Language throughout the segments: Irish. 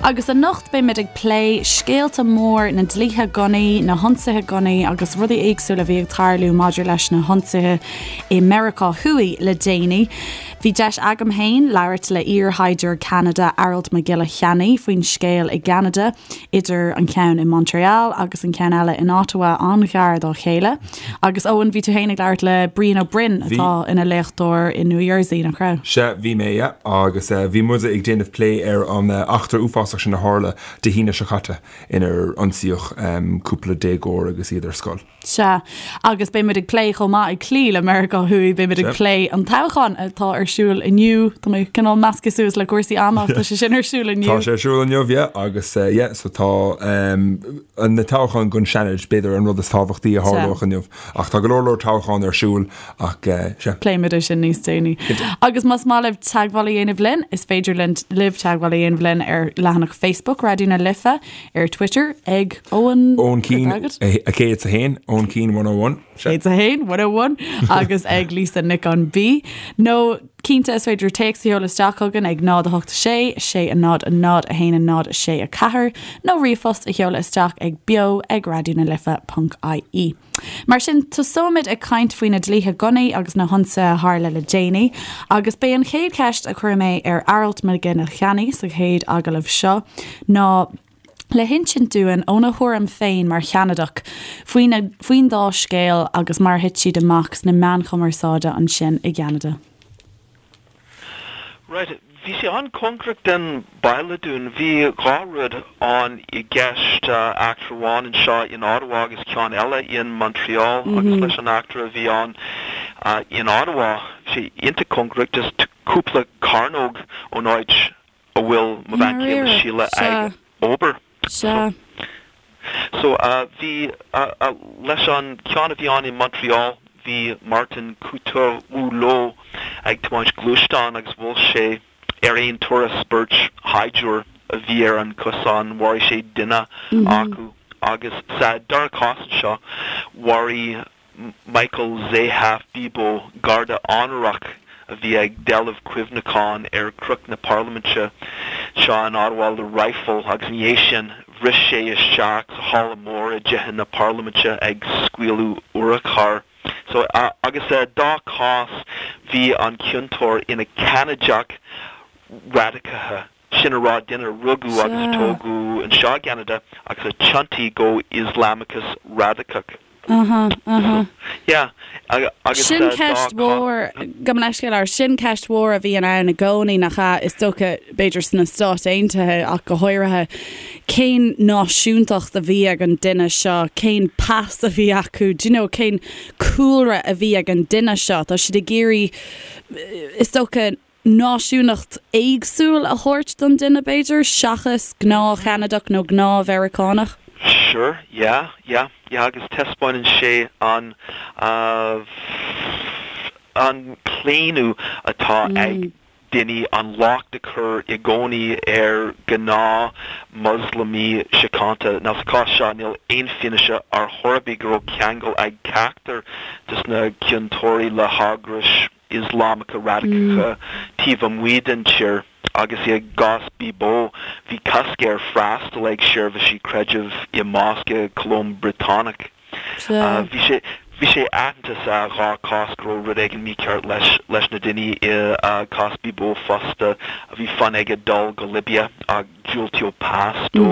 Agus anocht beimid ag plé scéalta mór na dlíthe gunnaí, na hionsaithe gunnaí agus rudaí éagsúla a bhí ag tarlú maidir leis na hionsaithe i Meiriceá Thuaidh le déanaí. Bhí deis agam féin labhairt le iar-shaighdiúir Ceanada Aralt Mac Giolla Cheannaigh faoin scéal i gCeanada, idir an ceann i Montréal agus an ceann eile in Ottawa an-ghar dá chéile. Agus Eoin, bhí tú féin ag labhairt le Brian Ó Broin atá ina léachtóir i New Jersey, nach raibh? Sea, bhí mé, yeah. Agus bhí muid ag déanamh plé ar an eachtra uafásach sin a tharla Dé hAoine seo caite inar ionsaíodh cúpla déagóir agus iad ar scoil. Sea, agus beidh muid ag plé chomh maith ag cloí le Meiriceá Thuaidh, beidh muid ag plé an toghchán atá ar siúl inniu. Tá mé cineál measctha suas le cúrsaí ama ach tá sé sin ar siúl inniu. Tá sé ar siúl inniu, yeah, agus yeah, so tá na toghcháin don Seanad, b'fhéidir an rud is tábhachtaí a tharlódh inniu. Ach tá go leor leor toghchán ar siúl ach sea. Pléimid é sin níos déanaí. Agus más maith libh teagmháil a dhéanamh linn, is féidir libh teagmháil a dhéanamh linn ar leathanach Facebook Raidió na Life, ar Twitter ag Eoin Eoin Keane 101, Eoin Keane 101. 101, 101 agus ag Lisa Nic an B. Nó cinnte is féidir téacs a sheoladh isteach chugainn ag 0 8 6 6 0 0 1 0 6 4 nó ríomhphost a sheoladh isteach ag beo ag raidionalife.ie. Mar sin, tosóimid ag caint faoi na dlíthe gunnaí agus na hionsaithe a tharla le déanaí, agus b'é an chéad cheist a chuir mé ar Aralt Mac Giolla Cheannaigh sa chéad agallamh seo ná le hinsint dúinn óna thuairim féin mar Cheanadach faoin dá scéal agus mar a thit siad amach sna meáin chumarsáide ansin i gCeanada. Right, bhí sé an-cóngarach den baile dúinn. Bhí dhá rud ann i gceist, eachtra amháin anseo in Ottawa agus ceann eile in Montreal agus leis an eachtra a bhí ann in Ottawa, bhí sé iontach cóngarach, just cúpla cearnóg ón áit a bhfuil mo bhean chéile Síle ag obair. Sea. So, bhí, leis an ceann a bhí ann i Montreal, bhí Martin Couture-Rouleau ag tiomáint gluaisteán agus bhuail sé ar aon turas beirt shaighdiúir a bhí ar an cosán, mharaigh sé duine acu agus sa dara cás anseo, mharaigh Michael Zehaf-Bibeau, garda onórach a bhí ag dealbh cuimhneacháin ar Chnoc na Parlaiminte anseo in Ottawa le raidhfil agus ina dhiaidh sin bhris sé isteach sa halla mór i dTithe na Parlaiminte ag scaoileadh urchar. So, agus sa dá chás bhí an ciontóir ina Cheanadach radacaithe, sin a rá duine a rugadh agus a tógadh anseo i gCeanada agus a thiontaigh go Ioslamachas radacach. Aha, aha. Yeah, agus Sin ceist mhór, gabh mo leithscéal air, sin ceist mhór a bhíonn ann i gcónaí, nach ea, is dócha, b'fhéidir sna Stáit Aontaithe ach go háirithe, cén náisiúntacht a bhí ag an duine seo, cén pas a bhí acu, do you know, cén cúlra a bhí ag an duine seo. Tá siad ag iarraidh, is dócha, náisiúnacht éagsúil a thabhairt don duine, b'fhéidir, seachas gnáth-Cheanadach nó gnáth-Mheiriceánach? Sure, yeah, yeah, yeah agus taispeánann sé an, an claonadh atá ag daoine an locht a chur i gcónaí ar ghnáth Moslamaigh síochánta. Now sa chás seo níl aon fianaise ar chor ar bith go raibh ceangal ag ceachtar de na ciontóirí le heagrais Ioslamacha radacacha taobh amuigh den tír agus i gcás Bibeau bhí cosc air freastal ag seirbhísí creidimh i mosc i Colóim Briotanach. Bhí sé bhí sé aitheanta sa dhá chás go raibh rud éigin mícheart leis leis na daoine i gcás Bibeau fosta. Bhí fonn aige dul go Libia ach diúltaíodh pas dó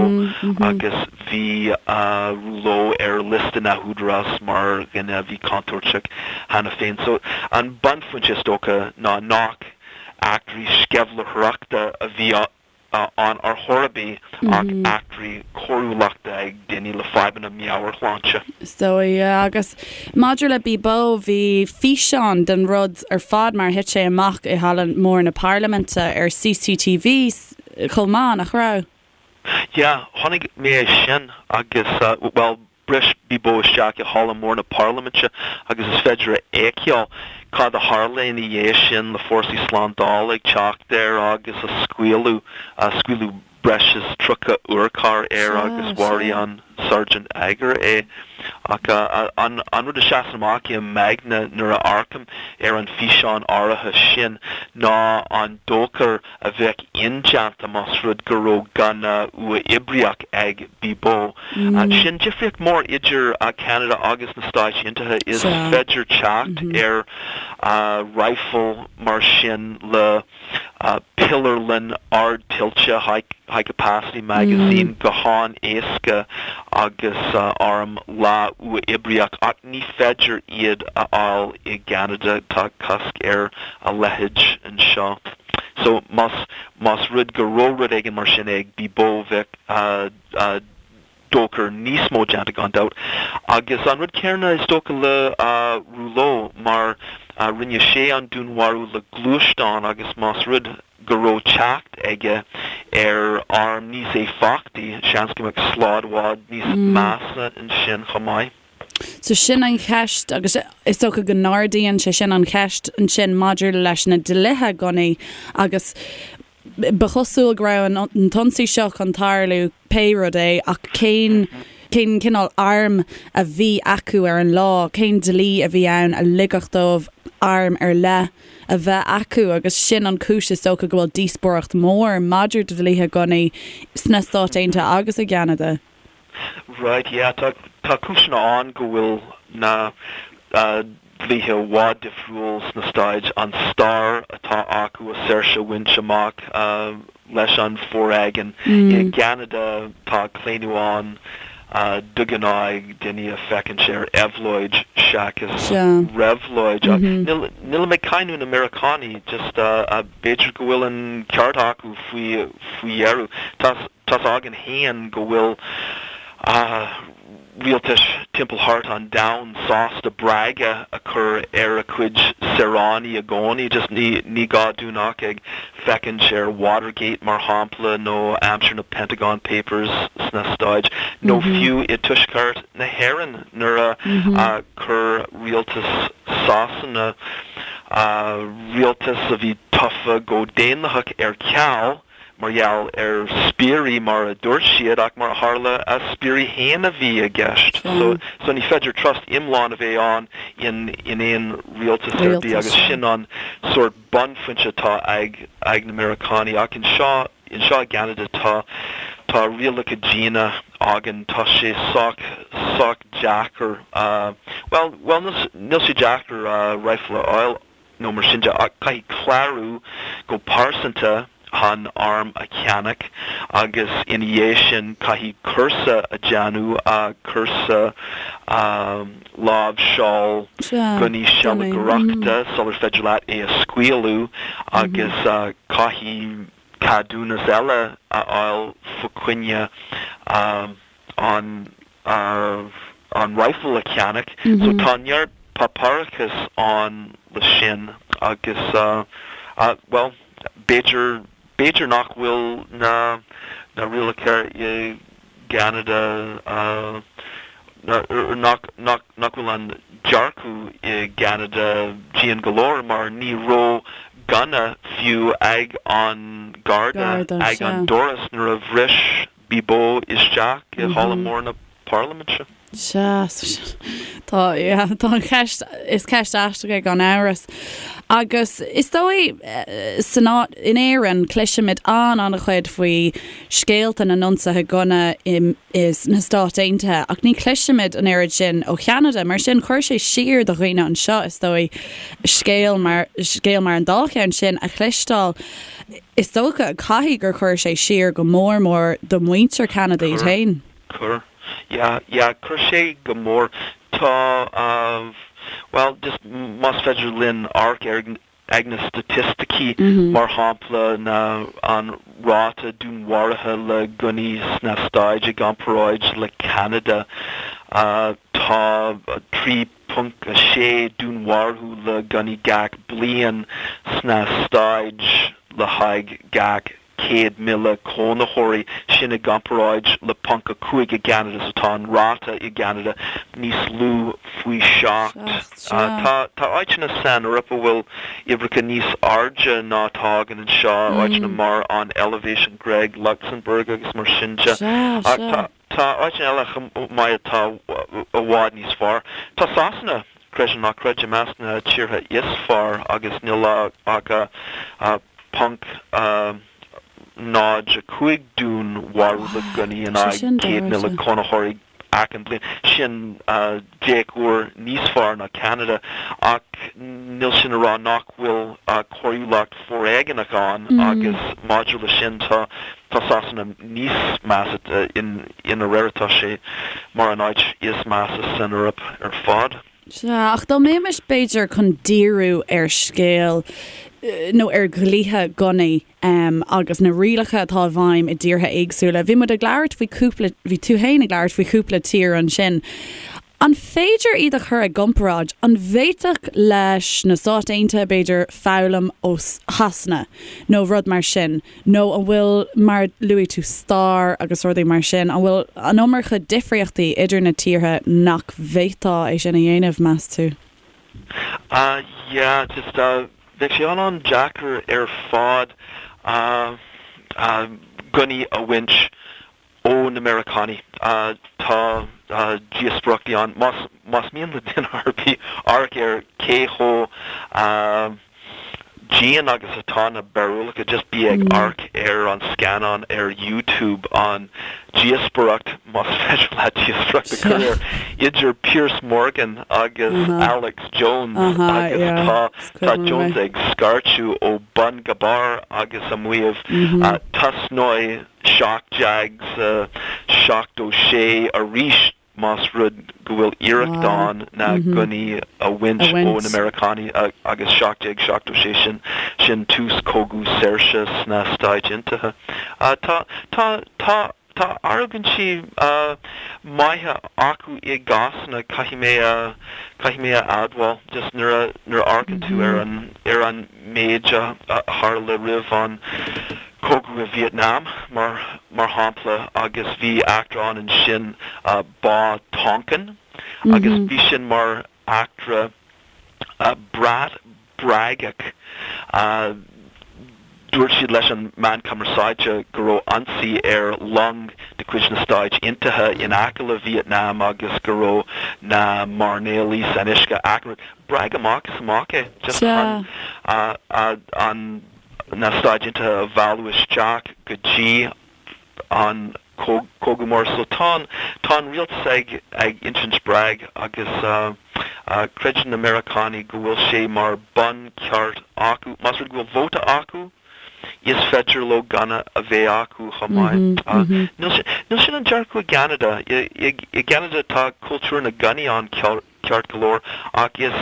agus bhí Rouleau ar liosta na n-údarás mar dhuine a bhí contúirteach cheana féin. So, an bunphointe is dócha ná nach eachtraí sceimhlitheoireachta a bhí ann ar chor ar bith ach eachtraí coiriúlachta ag daoine le fadhbanna meabhairshláinte. Is dóigh, yeah. Agus maidir le Bibeau, bhí físeán den rud ar fad mar a thit sé amach i Halla Mór na Parlaiminte ar CCTV chomh maith, nach raibh? Yeah, chonaic mé é sin agus, bhuel, bhris Bibeau isteach i Halla Mór na Parlaiminte agus is féidir a fheiceáil cad a tharla ina dhiaidh sin le fórsaí slándála ag teacht air agus a scaoileadh, scaoileadh breis is 30 urchar air agus mharaigh an Sergeant Aguirre é. Ach an rud a sheasann amach i m'aigne nuair a amharcaim ar an físeán áirithe sin ná an dochar a bheadh indéanta más rud go raibh gunna uathoibríoch ag Bibeau. Sin difríocht mór idir Ceanada agus na Stáit Aontaithe, is féidir teacht ar rifle mar sin le piléarlann ardtoillte, high capacity magazine, go han-éasca agus arm leath-uathoibríoch ach ní féidir iad a fháil i gCeanada, tá cosc ar a leithéid anseo. So más más rud go raibh rud éigin mar sin ag Bibeau bheadh dochar níos mó déanta gan dabht. Agus an rud céanna is dócha le Rouleau mar rinne sé an dúnmharú le gluaisteán agus más rud go raibh teacht aige ar arm níos éifeachtaí seans go mbeadh slad i bhfad níos measa ansin chomh maith. So sin an cheist agus is dócha go n-ardaíonn sé sin an cheist ansin maidir leis na dlíthe gunnaí agus ba chosúil go raibh an t-ionsaí seo chun tarlú pé rud é ach cén cén cineál arm a bhí acu ar an lá, cén dlí a bhí ann a ligfeadh dóibh arm ar leith a bheith acu agus sin an chúis is dócha go bhfuil díospóireacht mhór maidir le dlíthe gunnaí sna Stáit Aontaithe agus i gCeanada. Right, yeah, tá, tá cúiseanna ann go bhfuil na dlíthe i bhfad difriúil sna Stáit, an stair atá acu a saoirse a bhaint amach leis an foréigean. I gCeanada tá claonadh ann de ghnáth ag daoine a féachaint ar éabhlóid seachas réabhlóid. Ach níl, nílim ag cáineadh na Meiriceánaigh, just b'fhéidir go bhfuil an ceart acu faoi, faoi dheireadh. Tá, Tá's againn féin go bhfuil rialtais timpeall thart an domhan sásta breagadh a chur ar a cuid saoránaigh i gcónaí. Just ní ní gá dúinn ach ag féachaint ar Watergate mar shampla nó aimsir na Pentagon Papers sna Stáit nó fiú i dTuaisceart na hÉireann nuair a chuir rialtas Sasana, rialtas a bhí tofa go daonlathach ar ceal, mar gheall ar spiairí mar a dúirt siad ach mar a tharla a spiairí féin a bhí i gceist. So so ní féidir trust iomlán a bheith ann in in aon rialtas ar bith agus sin an sórt bunphointe atá ag ag na Meiriceánaigh ach anseo anseo i gCeanada tá tá rialacha diana againn tá sé sách sách deacair bhuel bhuel níl sé deacair rifle a fháil nó mar sin de, ach caithfidh clárú go pearsanta chun arm a cheannach agus ina dhiaidh sin caithfidh cúrsa a dhéanamh, cúrsa láimhseáil gunnaí sealgaireachta sular féidir leat é a scaoileadh agus caithfidh ceadúnas eile a fháil fá choinne an an rifle a cheannach. So tá neart páipéarachas ann le sin agus bhuel b'fhéidir b'fhéidir nach bhfuil na na rialacha i gCeanada nach nach nach bhfuil an dearcadh i gCeanada dian go leor mar ní raibh gunna fiú ag an Garda ag an doras nuair a bhris Bibeau isteach i halla mór na Parlaiminte. Sea, tá, yeah, tá an cheist, is ceist aisteach é gan amhras. Agus is dóigh, san áit, in Éirinn, cloisimid an-an-chuid faoi scéalta na n-ionsaithe gunna i, i, sna Stáit Aontaithe, ach ní chloisimid an oiread sin ó Cheanada. Mar sin, chuir sé siar do dhaoine anseo, is dóigh, scéal mar, scéal mar an dá cheann sin a chloisteáil. Is dócha, caithfidh gur chuir sé siar go mór mór do mhuintir Cheanada iad féin. Chuir. Yeah, yeah, chuir sé go mór. Tá, bhuel, just más féidir linn amharc ar ag na staitisticí, mar shampla, na, an ráta dúnmharuithe le gunnaí sna Stáit i gcomparáid le Ceanada, tá 3. 0.6 dúnmharú le gunnaí gach bliain sna Stáit le haghaidh gach 100,000 cónaitheoirí, sin i gcomparáid le 0.5 i gCeanada, so tá an ráta i gCeanada níos lú faoi sheacht. Tá tá áiteanna san Eoraip a bhfuil uimhreacha níos airde ná atá againn anseo, áiteanna mar an Eilvéis, an Ghréig, Lucsamburg agus mar sin de. Ach tá. Tá áiteanna eile chomh maith atá. i bhfad níos fearr. Tá Sasana, creid é nó ná creid, i measc na tíortha is fearr agus níl ach .05 dúnmharú le gunnaí in aghaidh 100,000 cónaitheoirí achan bliain. Sin 10 uair níos fearr ná Ceanada ach níl sin a rá nach bhfuil coiriúlacht foréigeanach ann agus maidir le sin tá tá Sasana níos measa, i ndáiríre tá sé mar an áit is measa san Eoraip ar fad. Sea, ach dá mbeimis b'fhéidir chun díriú ar scéal nó ar dhlíthe gunnaí agus na rialacha atá i bhfeidhm i dtíortha éagsúla, bhí muid ag labhairt faoi chúpla, bhí tú féin ag labhairt faoi chúpla tír ansin. An féidir iad a chur i gcomparáid? An bhféadfadh leis na Stáit Aontaithe, b'fhéidir, foghlaim ó Shasana nó rud mar sin? Nó an bhfuil, mar luaigh tú stair agus rudaí mar sin, an bhfuil an iomarca difríochtaí idir na tíortha nach bhféadfá é sin a dhéanamh, meas tú? Ah yeah, just bheadh sé an-an-deacair ar fad gunnaí a bhaint ó na Meiriceánaigh. Tá díospóireachtaí ann. Más mian le duine ar bith amharc ar cé chomh dian agus atá na barúlacha, just bí ag amharc ar an scannán ar YouTube, an díospóireacht, más féidir leat díospóireacht a chur air, idir Piers Morgan agus Alex Jones agus tá tá Jones ag scairteadh ó bun go barr agus ag maíomh tosnóidh 1776 arís más rud go bhfuil iarracht ann na gunnaí a bhaint ó na Meiriceánaigh agus 1776 sin sin tús cogadh saoirse sna Stáit Aontaithe. Tá tá tá tá argóintí maithe acu i gcásanna caithfidh mé a caithfidh mé a admháil just nuair a nuair a amharcann tú ar an ar an méid a tharla roimh an Cogadh i Vietnam, mar mar shampla, agus bhí eachtra ann ansin, Bá Tonkin, agus bhí sin mar eachtra brat bréagach. Dúirt siad leis an meán cumarsáide go raibh ionsaí ar long de chuid na Stáit Aontaithe in aice le Vietnam agus go raibh na mairnéalaigh san uisce achan rud. Bréag amach is amach é, just chun an na Stáit Aontaithe a mhealladh isteach go dtí an cogadh mór. So tá an, tá an rialtas ag, ag insint bréag agus creideann na Meiriceánaigh go bhfuil sé mar buncheart acu. Más rud go bhfuil vóta acu, is féidir leo gunna a bheith acu chomh maith. Níl sin, níl sin an dearcadh i gCeanada. I gCeanada tá cultúr na ngunnaí ann ceart go leor, ach is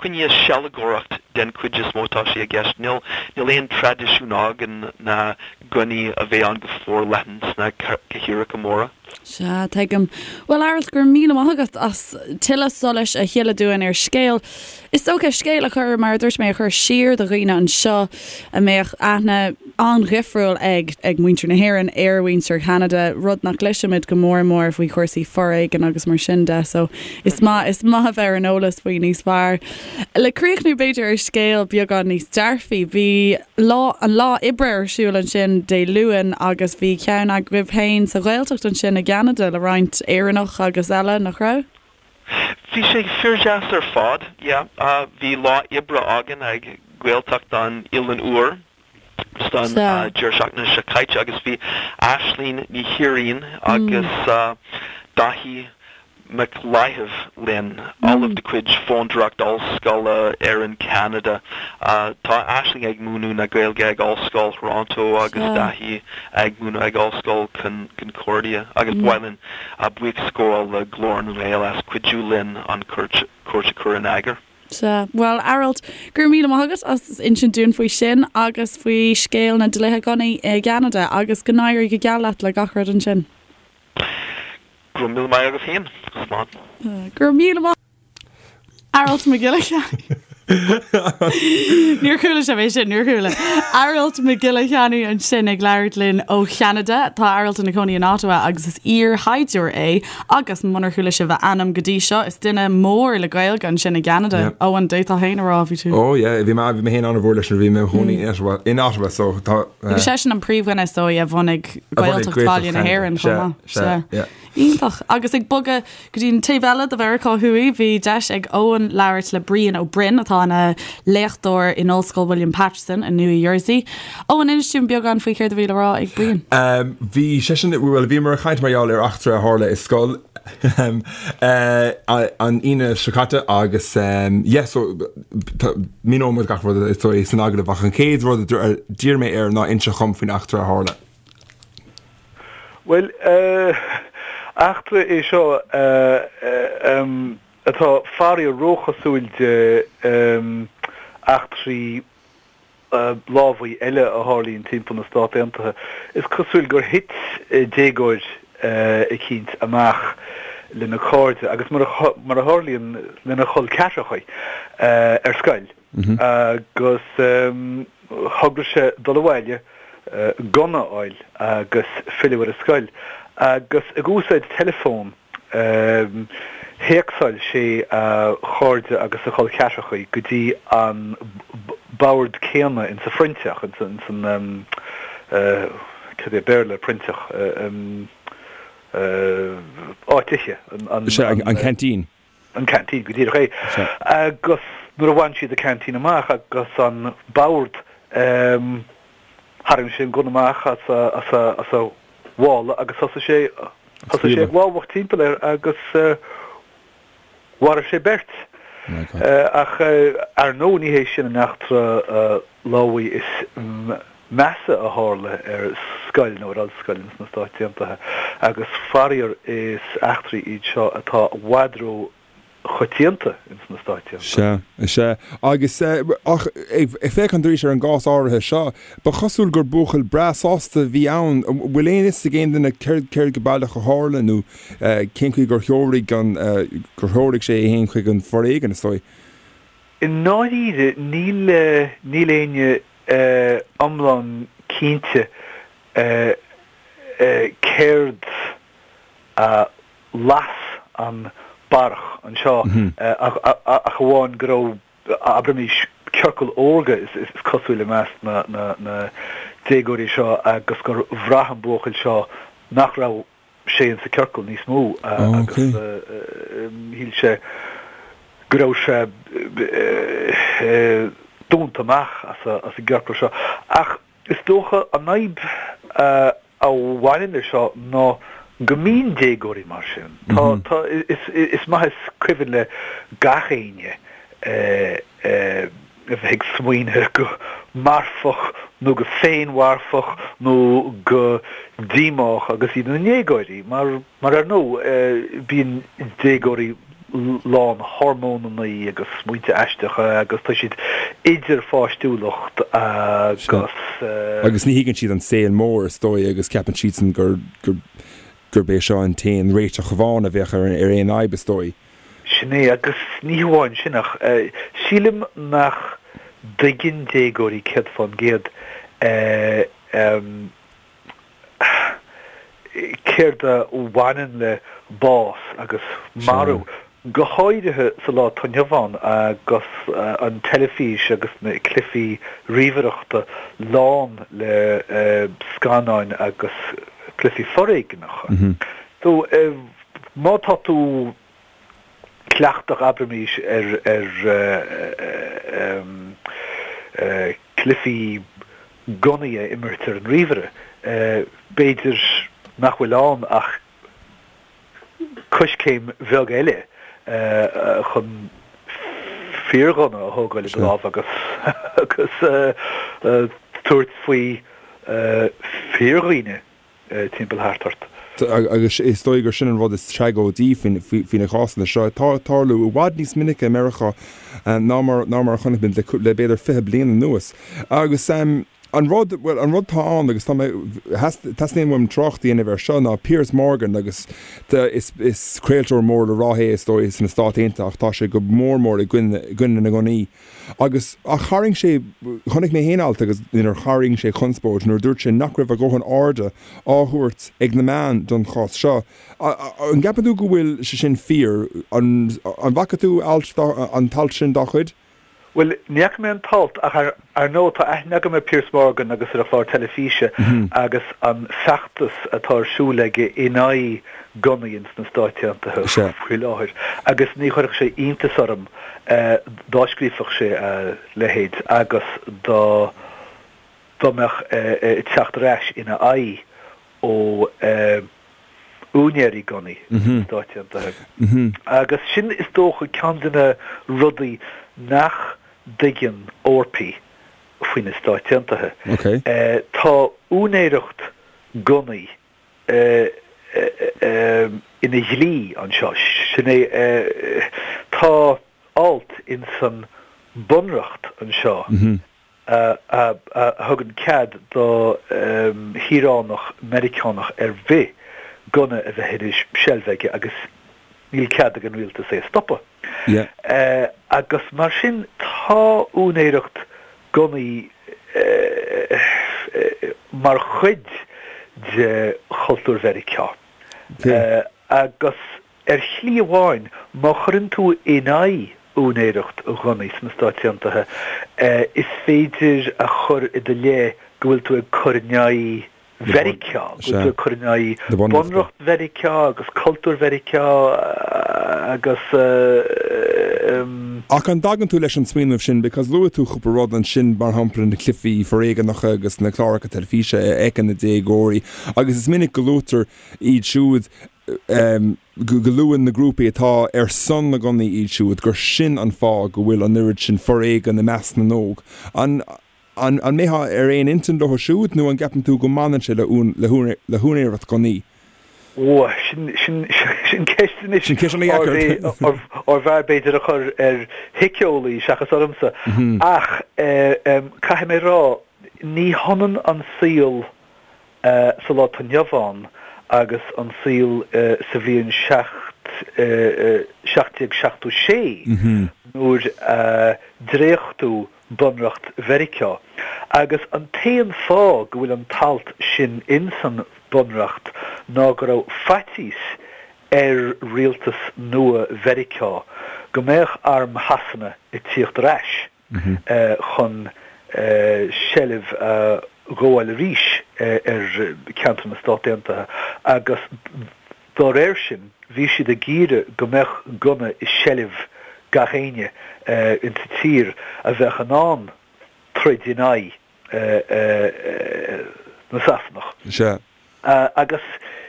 coinne sealgóireacht den chuid is mó atá sé i gceist. Níl aon traidisiún againn na gunnaí a bheith ann go forleathan sna cathracha móra. Sea, tuigim. Bhuel, Aralt, go raibh míle maith agat as tuilleadh solais a shileadh dúinn ar scéal. Is dócha, scéal a chur, mar a dúirt mé, a chur siar do dhaoine anseo a mbeadh aithne an-dhifriúil ag ag muintir na hÉireann ar mhuintir Cheanada, rud nach gcloisimid go mór mór faoi chúrsaí foréigin agus mar sin de. So is maith, is maith a bheith ar an eolas faoi níos fearr. Le críochnú b'fhéidir ar scéal beagán níos dearfaí, bhí lá, an lá oibre ar siúl ansin Dé Luain agus bhí ceann agaibh féin sa Ghaeltacht ansin i gCeanada le roinnt Éireannach agus eile, nach raibh? Bhí sé fíordheas ar fad, yeah. Bhí lá oibre againn ag Gaeltacht an Oileáin Úir just an deireadh seachtaine seo caite agus bhí Aisling Ní Thiaráin agus Daithí Mac Láimh linn, ollamh de chuid Fondúireacht Ollscoile Éireann Ceanada. Tá Aisling ag múineadh na Gaeilge ag Ollscoil Thoronto agus Daithí ag múineadh ag Ollscoil Concordia agus ba mhaith linn buíochas a ghabháil le Glór na nGael as cuidiú linn an cuairt a chur in eagar. Sea. Bhuel, Aralt, go raibh míle maith agat as insint dúinn faoi sin agus faoi scéal na dlíthe gunnaí i gCeanada agus go n-éirí go geal leat le gach rud ansin. Go raibh míle maith agat féin. Slán. Go raibh míle maith. Aralt Mac Giolla Chearra. Níor chuala sibh é sin, níor chuala. Aralt Mac Giolla Cheannaigh ansin ag labhairt linn ó Cheanada. Tá Aralt ina chónaí in Ottawa agus is iar-shaighdiúir é agus munar chuala sibh a ainm go dtí seo, is duine mór le Gaeilge ansin i gCeanada. Yeah. Eoin, d'fhéadfá féin a rá, bhí tú. Oh yeah, bhí mé bhí mé féin an-mhór leis nuair a bhí mé i mo chónaí in Ottawa, in Ottawa so tá. Agus seisean an príomhdhuine is dóigh a bhunaigh Gaeltacht Bhaile na hÉireann chomh maith. Sea, yeah. Iontach. Agus ag bogadh go dtí an taobh eile de Mheiriceá Thuaidh, bhí deis ag Eoin labhairt le Brian Ó Broin, atá ina léachtóir in Ollscoil William Paterson i Nua Jersey. Eoin, inis dúinn beagán faoi céard a bhí le rá ag Brian. Bhí seisean, bhuel, bhíomar ag caint mar gheall ar eachtra a tharla i scoil an Aoine seo caite agus yeah, so míneoidh muid gach rud is dóigh san agallamh ach an chéad rud a d'iarr mé air ná inse dhom faoin eachtra a tharla. Bhuel, eachtra é seo atá faraor róchosúil de eachtraí lámhaigh eile a tharlaíonn timpeall na Stát Aontaithe. Is cosúil gur thit déagóir eicínt amach lena chairde agus mar a tharlaíonn lena chol ceathracha ar scoil. Agus thograigh sé dul abhaile, gunna a fháil agus filleadh ar an scoil. Agus ag úsáid teileafón, théacsáil sé a chairde agus a chol ceathracha go dtí an bord céanna insa phroinnteach, ins an, cad é Béarla ar proinnteach, áit ithe, an. Sea, an canteen. an canteen, go díreach é. Agus nuair a bhain siad an canteen amach agus an bord, tharraing sé an gunna amach as a mhála agus thosaigh sé, thosaigh sé ag lámhach timpeall air agus mharaigh sé beirt. Ach ar ndóigh ní hé sin an eachtra lámhaigh is measa a tharla ar scoil nó ar ollscoil ins na Stáit Aontaithe agus faraor is eachtraí iad seo atá i bhfad ró choitianta ins na Stáit Aontaithe. Sea, sea. Agus, ach ag féachaint arís ar an gcás áirithe seo, ba chosúil gur buachaill breá sásta a bhí ann. An bhfuil aon fhios ag aon duine céard, céard go baileach a tharla nó cén chaoi gur threoraigh an, gur threoraigh sé é féin chuig an bhforéigean, is dóigh? I ndáiríre níl, níl éinne iomlán cinnte céard a las an barrach anseo ach amháin go raibh, abraimis, ciorcal órga is cosúil i measc na déagóirí seo agus gur bhraith an buachaill seo nach raibh sé insa ciorcal níos mó agus shíl sé go raibh sé dúnta amach as an gciorcal seo. Ach is dócha an fhadhb a bhaineann leis seo ná go mbíonn déagóirí mar sin. Tá, tá, is maith is cuimhin le gach éinne a bheith ag smaoineamh go marfach nó go féinmharfach nó go díomách agus iad ina ndéagóirí, mar, mar ar ndóigh, bíonn déagóirí lán hormónanna agus smaointe aisteacha agus tá siad idir pháistiúlacht agus. Agus ní thuigeann siad an saol mór, is dóigh, agus ceapann siadsan gur, gur, gurb é seo an t-aon réiteach amháin a bheadh ar, ar aon fhadhb, is dóigh. Sin é, agus ní hamháin sin ach sílim nach dtuigeann déagóirí 100% céard a bhaineann le bás agus marú, go háirithe sa lá atá inniu ann agus an teilifís agus na cluichí ríomhaireachta lán le scannáin agus cluichí foréigneacha. So, Má tá tú cleachtach, abraimís, ar chluichí gunnaí a imirt ar an ríomhaire, b'fhéidir nach bhfuil ann ach coiscéim bheag eile chun fíorghunna a thógáil i do lámh agus tabhairt faoi fíordhaoine. timpeall thart ort. Agus is dóigh gur sin an rud is tragóidí faoi na cásanna seo, atá ag tarlú i bhfad níos minice i Meiriceá ná mar ná mar a chonaic muid le b'fhéidir 20 bliain anuas. Agus. An rud, bhuel, an rud atá ann, agus tá mé, teastaíonn uaim trácht a dhéanamh air seo, ná Piers Morgan agus is, is craoltóir mór le rá é is dóigh sna Stáit Aontaithe ach tá sé go mór mór i gcoinne, i gcoinne na ngunnaí. Agus, ach tharraing sé, chonaic mé féin alt agus inar tharraing sé conspóid nuair a dúirt sé nach raibh a dhóthain airde á thabhairt ag na meáin don chás seo. An gceapann tú go bhfuil sé sin fíor? An, an bhfaca tú alt dá, an t-alt sin dá chuid? Bhuel, ní fhaca mé an t-alt, ach ar ndóigh tá aithne agam ar Piers Morgan agus ar a chlár teilifíse agus an feachtas atá ar siúl aige in aghaidh gunnaí ins na Stáit Aontaithe faoi láthair agus ní chuirfeadh sé iontas orm dá scríobhfadh sé a leithéid agus dá dá mbeadh teacht ar ais ina aghaidh ó úinéirí gunnaí sna Stáit Aontaithe. Agus sin, is dócha, ceann de na rudaí nach dtuigeann Eorpaigh faoi na Stáit Aontaithe. Tá úinéireacht gunnaí ina dhlí anseo. Sin é, tá alt insan Bunreacht anseo a thugann cead do shaoránach Meiriceánach ar bith gunna a bheith ina sheilbh aige agus níl cead ag an rialtas é a stopadh. Agus mar sin tá úinéireacht gunnaí mar chuid de chultúr Mheiriceá. Agus Ar shlí amháin, má chuireann tú in aghaidh úinéireacht ghunnaí sna Stáit Aontaithe, is féidir a chur i do leith go bhfuil tú ag cur in aghaidh Mheiriceá, go bhfuil tú ag cur in aghaidh Bunreacht Mheiriceá agus cultúr Mheiriceá agus. Ach an dtagann tú leis an smaoineamh sin, because luaigh tú cúpla rud ansin, mar shampla na cluichí foréigeanacha agus na cláracha teilifíse a fheiceann na déagóirí, agus is minic go luaitear iad siúd go luann na grúpaí atá ar son na ngunnaí iad siúd gur sin an fáth go bhfuil an oiread sin foréigean i measc na n-óg. An an mbeifeá ar aon intinn leo siúd nó an gceapann tú go mbaineann sé le le húinéireacht gunnaí? Ó, sin sin sin ceist anois Sin ceist an-dheacair. arbh fhearr b'fhéidir a chur ar shíceolaí seachas ormsa. Ach caithfidh mé a rá, ní hionann an saol sa lá atá inniu ann agus an saol sa bhliain 1776 nuair a dréachtadh Bunreacht Mheiriceá. Agus an t-aon fáth go bhfuil an t-alt sin insan Bhunreacht ná go raibh faitíos ar rialtas nua Mheiriceá go mbeadh arm Shasana ag tíocht ar ais. chun seilbh a ghabháil arís ar cheantar na Stát Aontaithe agus dá réir sin bhí siad ag iarraidh go mbeadh gunna i seilbh gach éinne insa tír a bheadh in ann troid in aghaidh na Sasanach. Sea. Agus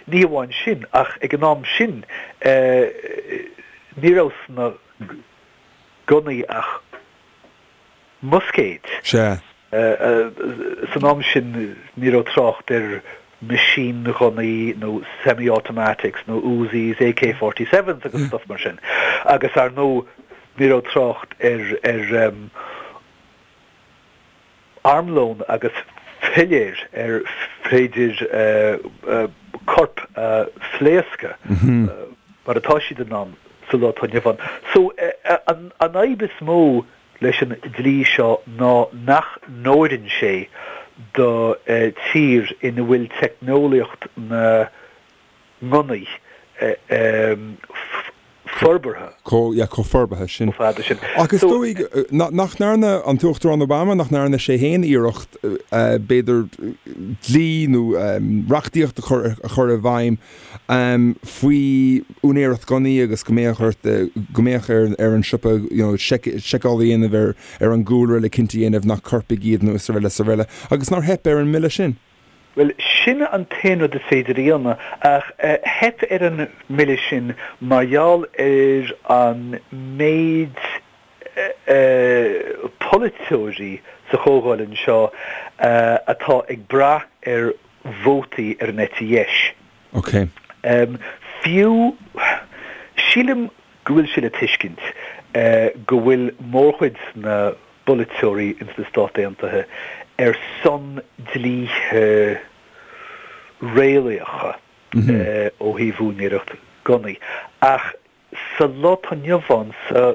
ní hamháin sin ach ag an am sin ní raibh sna gunnaí ach muscaeid. Sea. San am sin ní raibh trácht ar machine-ghunnaí nó semi-automatics nó Uzis, AK-47s agus stuff mar sin. Agus ar ndóigh ní raibh trácht ar ar armlón agus piléir ar féidir corp a phléascadh mar atá siad in ann sa lá atá inniu ann. So, an fhadhb is mó leis an dlí seo ná nach n-oireann sé do tír ina bhfuil teicneolaíocht na ngunnaí forbartha. Chomh, yeah, chomh forbartha sin. Chomh fada sin. Ach is dóigh nach ndearna an tUachtarán Obama, nach ndearna sé féin iarracht, b'fhéidir, dlí nó reachtaíocht a chur, a chur i bhfeidhm faoi úinéireacht gunnaí agus go mbeadh ort, go mbeadh ar, ar an siopa, you know, seiceáil a dhéanamh ar, ar an gcúlra le cinnte a dhéanamh nach coirpigh iad nó is araile is araile. Agus nár theip ar an mbille sin? Bhuel, sin an t-aon rud is féidir a dhéanamh, ach theip ar an mbille sin mar gheall ar an méid polaiteoirí sa Chomhdháil anseo atá ag brath ar vótaí ar an eite dheis. Ok. Fiú, sílim go bhfuil sé le tuiscint go bhfuil mórchuid na bpolaiteoirí ins na Stáit Aontaithe. ar son dlíthe réalaíocha ó thaobh úinéireacht gunnaí. Ach sa lá atá inniu ann, sa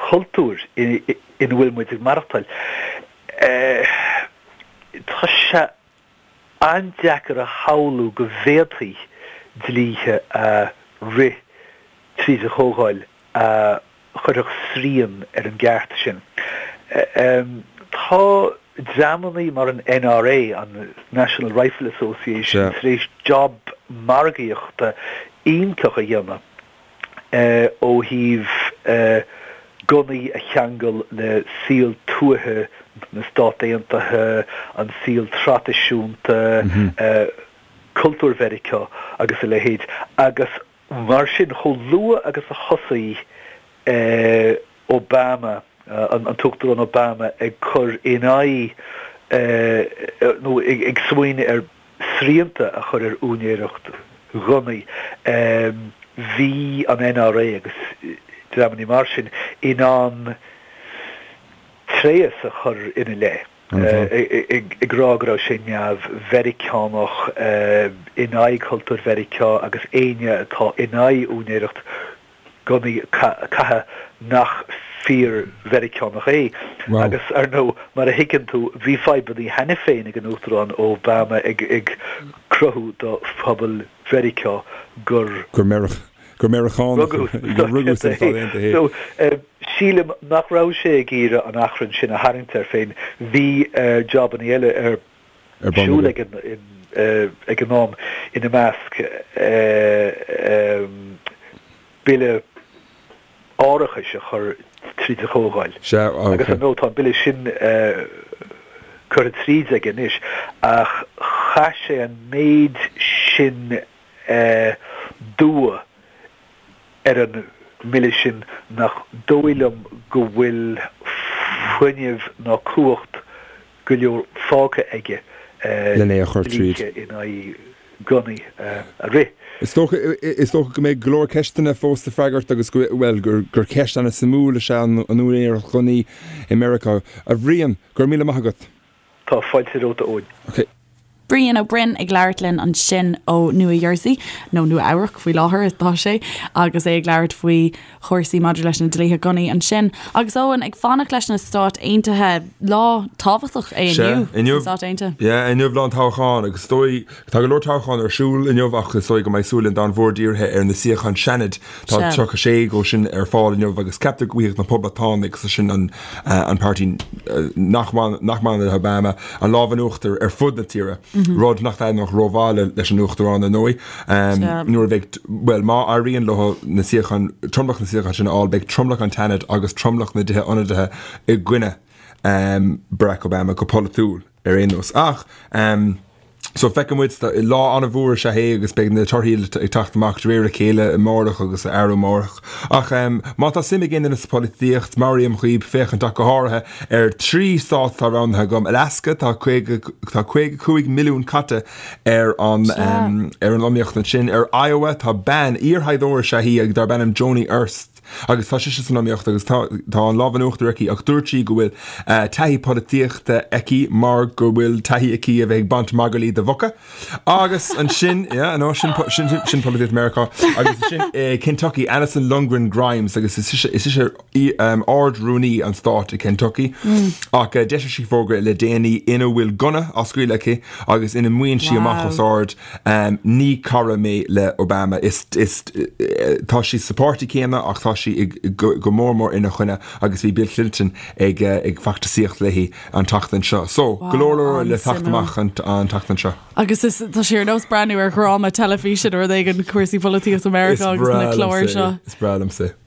chultúr ina bhfuil muid ag maireachtáil, tá sé an-deacair a shamhlú go bhféadfaí dlíthe a rith tríd an Chomhdháil a chuirfeadh srian ar an gceart sin. Tá dreamannaí mar an NRA, an National Rifle Association, tar éis job margaíochta iontach a dhéanamh ó thaobh gunnaí a cheangal le saol tuaithe na Stát Aontaithe, an saol traidisiúnta, cultúr Mheiriceá agus a leithéid. Agus Mar sin, chomh luath agus a thosaigh Obama, an tUachtarán Obama ag cur in aghaidh nó ag smaoineamh ar srianta a chur ar úinéireacht ghunnaí, bhí an NRA agus dreamannaí mar sin in ann tréas a chur ina leith. ag rá go raibh sé neamh-Mheiriceánach, in aghaidh chultúr Mheiriceá agus éinne atá in aghaidh úinéireacht gunnaí caithfidh nach fíor-Mheiriceánach é. Agus, ar ndóigh, mar a thuigeann tú, bhí fadhbanna cheana féin ag an Uachtarán Obama ag cruthú do phobal Mheiriceá gur. Gur Meiriceánach gur rugadh sna Stáit Aontaithe é. So, sílim nach raibh sé ag iarraidh an achrann sin a tharraingt air féin. Bhí jobanna eile ar siúl ag an am, ina measc bille árachais a chur tríd an Chomhdháil. Agus ar ndóigh tá an bille sin curtha tríd aige anois ach chaith sé an méid sin dua ar an mbille sin nach dóigh liom go bhfuil fuinneamh ná cumhacht go leor fágtha aige len é a chur tríd. dlíthe in aghaidh gunnaí a rith. Is dócha, is dócha go mbeidh go leor ceisteanna fós le freagairt agus go, bhuel, gur, gur ceist ana-suimiúil is ea an úinéireacht ghunnaí i Meiriceá. A Bhriain, go raibh míle maith agat. Tá fáilte romhat, a Eoin. Ok. Brian Ó Broin ag labhairt linn ansin ó Nua Jersey, nó Nua Eabhrac faoi láthair atá sé, agus é ag labhairt faoi chúrsaí maidir leis na dlíthe gunnaí ansin. Agus Eoin, ag fanacht leis na Stáit Aontaithe, lá tábhachtach é Sea, inniu sna Stáit Aontaithe. Yeah, inniu lá an toghcháin agus is dóigh, tá go leor toghchán ar siúl inniu ach is dóigh go mbeidh súil an domhain mhóir dírithe ar na suíocháin Seanaid. Tá 36 dhó sin ar fáil inniu agus ceaptar go bhfaighidh na Poblachtánaigh, is é sin an an páirtí nach mbaineann le Obama, an lámh in uachtar ar fud na tíre, rud nach dtaitneodh rómhaith leis an Uachtarán, ar ndóigh. Nuair a bheidh, bhuel, má éiríonn leo na suíocháin, tromlach na suíochán sin a fháil, beidh tromlach an tSeanaid agus tromlach na dTithe Ionadaithe i gcoinne Barack Obama go polaitiúil ar aon nós. Ach. So feicfidh muid, lá an-mhór is ea é agus beidh na torthaí ag teacht amach de réir a chéile amárach agus arú amárach. Ach má tá suim ag aon duine sa pholaitíocht, meabhraím dhaoib féachaint ach go háirithe ar 3 stát atá roghnaithe agam, Alaska, tá 50, tá 55 milliún caite ar an ar an iomaíocht ansin, ar Iowa tá bean, iarshaighdiúir is ea í ag darb ainm Joni Ernst, Agus tá sise san iomaíocht agus tá tá an lámh in uachtar aici ach dúirt sí go bhfuil taithí polaitíochta aici mar go bhfuil taithí aici a bheith ag baint magairlí de mhuca. Agus ansin, yeah, no, sin sin sin polaitíocht Meiriceá. Agus ansin Kentucky, Alison Lundgren Grimes agus is ise is ise Ard-Rúnaí an stáit i Kentucky. Ach d'eisigh sí fógra le déanaí ina bhfuil gunna á scaoileadh aici agus ina maíonn sí amach os ard Ní cara mé le Obama. Is, is, tá sí sa pháirtí céanna ach tá sí go mór mór ina choinne agus bhí Bill Clinton ag, ag feachtasaíocht léi an tseachtain seo. So, go leor leor le teacht amach an tseachtain seo. Agus is, tá sé ar nós breathnú ar dhráma teilifíse nó rud éigin, cúrsaí polaitíochta Meiriceá agus na cláir seo. Is breá liomsa é.